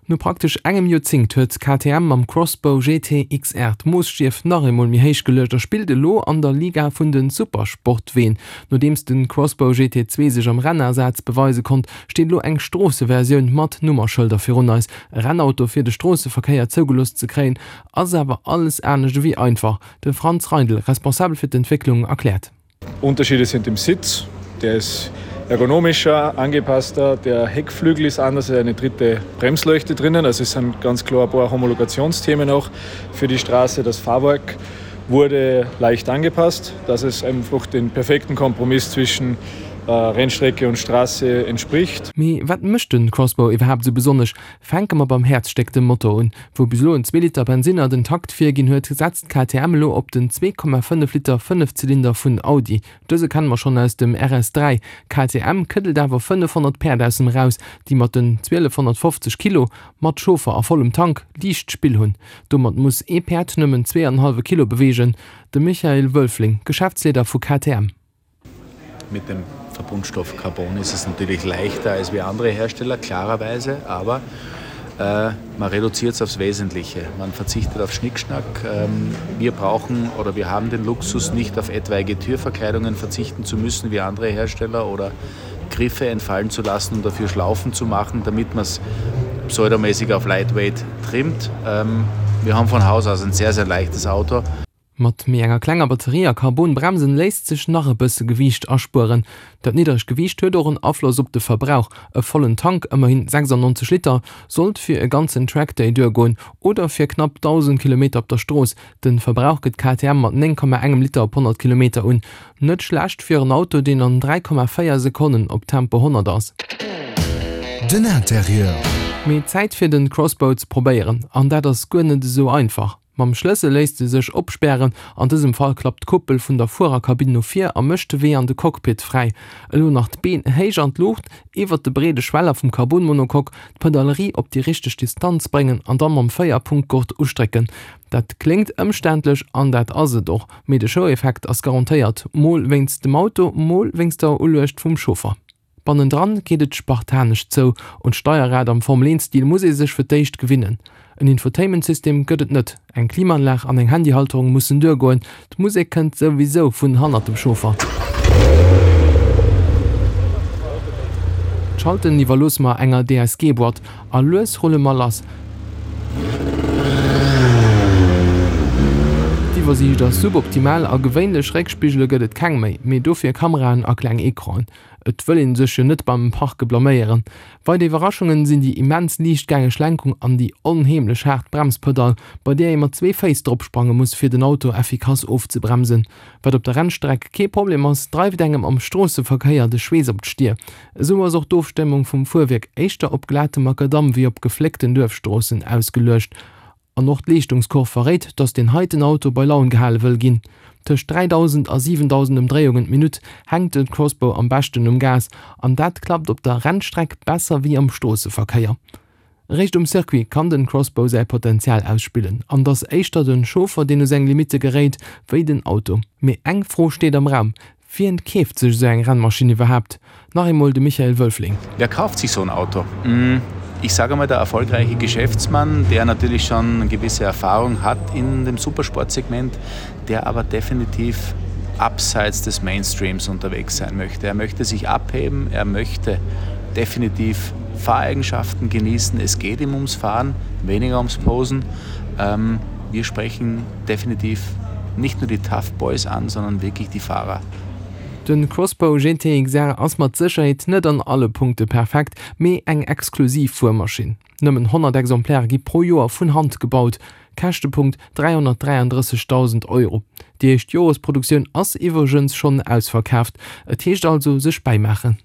No praktesch engem Joerzéngt huet KTM mam Crossbow GT XR d'Moosstiew nach eemol méi héich geluecht a spillt elo an der Liga vun de Supersportween. Nodeems de Crossbow GT 2 sech am Rennasaz beweise konnt, steet elo eng Stroosseversioun mat Nummerschëlder virun eis. E Rennauto fir de Stroosseverkéier zougelooss ze kréien, ass awer alles anescht ewéi einfach. De Franz Reindl, Responsabel fir d'Entwécklung, erkläert. Unterschiede sind im Sitz, der ist ergonomischer, angepasster, der Heckflügel ist anders, es ist eine dritte Bremsleuchte drinnen, also es sind ganz klar ein paar Homologationsthemen auch für die Straße. Das Fahrwerk wurde leicht angepasst, dass es einfach den perfekten Kompromiss zwischen äh, Rennstrecke und Straße entspricht. Mee wat mécht den Crossbow iwwerhaapt esou besonnesch? Fänke mer beim Häerzstéck, dem Motor un. Wou bis elo en Zweeliter Bensinner den Takt virginn huet, setzt KTM elo op den 2,5 Liter Fënnefzylinder vun Audi. Dëse kenne mer schonn aus dem RS3. KTM këddelt awer 500 Päerd aus em eraus, déi mat den 1250 Kilo, mat Chauffer a vollem Tank, liicht Spill hunn. Domat muss ee Päerd nëmmen zweeanenhallwe Kilo beweegen. De Michael Wölfling, Geschäftsleeder vu KTM. Mit dem Verbundstoff Carbon ist es natürlich leichter als wie andere Hersteller, klarerweise, aber äh, man reduziert es aufs Wesentliche. Man verzichtet auf Schnickschnack. Ähm, wir brauchen oder wir haben den Luxus, nicht auf etwaige Türverkleidungen verzichten zu müssen wie andere Hersteller oder Griffe entfallen zu lassen und dafür Schlaufen zu machen, damit man es pseudomäßig auf Lightweight trimmt. Ähm, wir haben von Haus aus ein sehr, sehr leichtes Auto. Mat méi enger klenger Batterie a Carbon-Bremsen léisst sech nach e bësse Gewiicht aspueren. Dat niddregt Gewiicht huet och en Afloss op de Verbrauch, e vollen Tank, ëmmerhin 96 Liter, sollt fir e ganzen Trackday duergoen oder fir knapp 1.000 Kilometer op der Strooss. De Verbrauch gëtt KTM mat 9,engem Liter op 100 Kilometer un. Net schlecht fir en Auto, deen an 3,4 Sekonnen op Tempo 100 ass. Den Interieur. Mee Zäit fir den Crossbow ze probéieren, an dat ass guer net esou einfach. Mam Schlëssel léisst se sech opspären, an dësem Fall klappt d'Kuppel vun der Fuererkabinn no vir a mécht de Wee an de Cockpit fräi. Elo nach d'Been héich an d'Luucht, iwwert de breede Schweller vum Carbon-Monocoque, d'Pedalerie op déi richteg Distanz bréngen an da mam Véierpunktgurt ustrécken. Dat kléngt ëmständlech an dat ass et och, mee de Show-Effekt ass garantéiert, mol wéinst dem Auto, mol wéinst der Uluecht vum Chauffer. Bannendran geet et spartanesch zou, un d'Steierrad am Formel 1 Stil muss ee sech fir d'éischt gewinnen. En Infotainment-System gëtt et net, eng Klimaanlag an eng Handyhalterung mussen duergoen, d'Musek kënnt souwisou vun hannert dem Chauffer. D'Schalten iwwerloosse mer enger DSG-Boîte a lues rulle mer lass. D'Iwwersiicht ass suboptimal a gewéinlech Réckspigele gëtt et keng méi, mee dofir Kameraen a kleng Ecranen. Et wëll een sech jo net beim Parke blaméieren. Weider Iwwerraschungen sinn déi immens liichtgängeg Lenkung an déi onheemlech haart Bremspedall, bei där ee mat zwee Féiss dropsprange muss, fir den Auto effikass ofzebremsen. Wat op der Rennstreck kee Problem ass, dreift engem am Stroosseverkéier de Schweess op d'Stier. Esou ass och d'Ofstëmmung vum Fuerwierk éischter op glatem Makadamm wéi op gefléckten Duerfstroossen ausgeluecht. An och d'Leeschtungskurv verréit, dass deen heiten Auto bei Laun gehale wëll ginn. Tëscht 3.000 a 7.000 Ëmdréiungen d'Minutt hänkt de Crossbow am beschten um Gas, an dat klappt op der Rennstreck besser wéi am Stroosseverkéier. Eréischt um Circuit kann den Crossbow säi Potenzial ausspillen, an dass éischter den Chauffer deen u seng Limitte geréit, wéi den Auto. Mee eng Fro steet am Raum, Wien keeft sech esou eng Rennmaschinn iwwerhaapt? Nach eemol de Michael Wölfling. Wer kauft sich so ein Auto? Ich sage einmal, der erfolgreiche Geschäftsmann, der natürlich schon gewisse Erfahrung hat in dem Supersportsegment, der aber definitiv abseits des Mainstreams unterwegs sein möchte. Er möchte sich abheben, er möchte definitiv Fahreigenschaften genießen. Es geht ihm ums Fahren, weniger ums Posen. Ähm, wir sprechen definitiv nicht nur die Tough Boys an, sondern wirklich die Fahrer. Den Crossbow GT XR ass mat Sécherheet net an alle Punkte perfekt, mee eng exklusiv Fuermaschinn. Nëmmen 100 Exemplaire gi pro Joer vun Hand gebaut, Käschtepunkt 333.000 Euro. Déi éischt Joresproduktioun ass iwwregens schonn ausverkaaft. Et heescht also sech bäimaachen.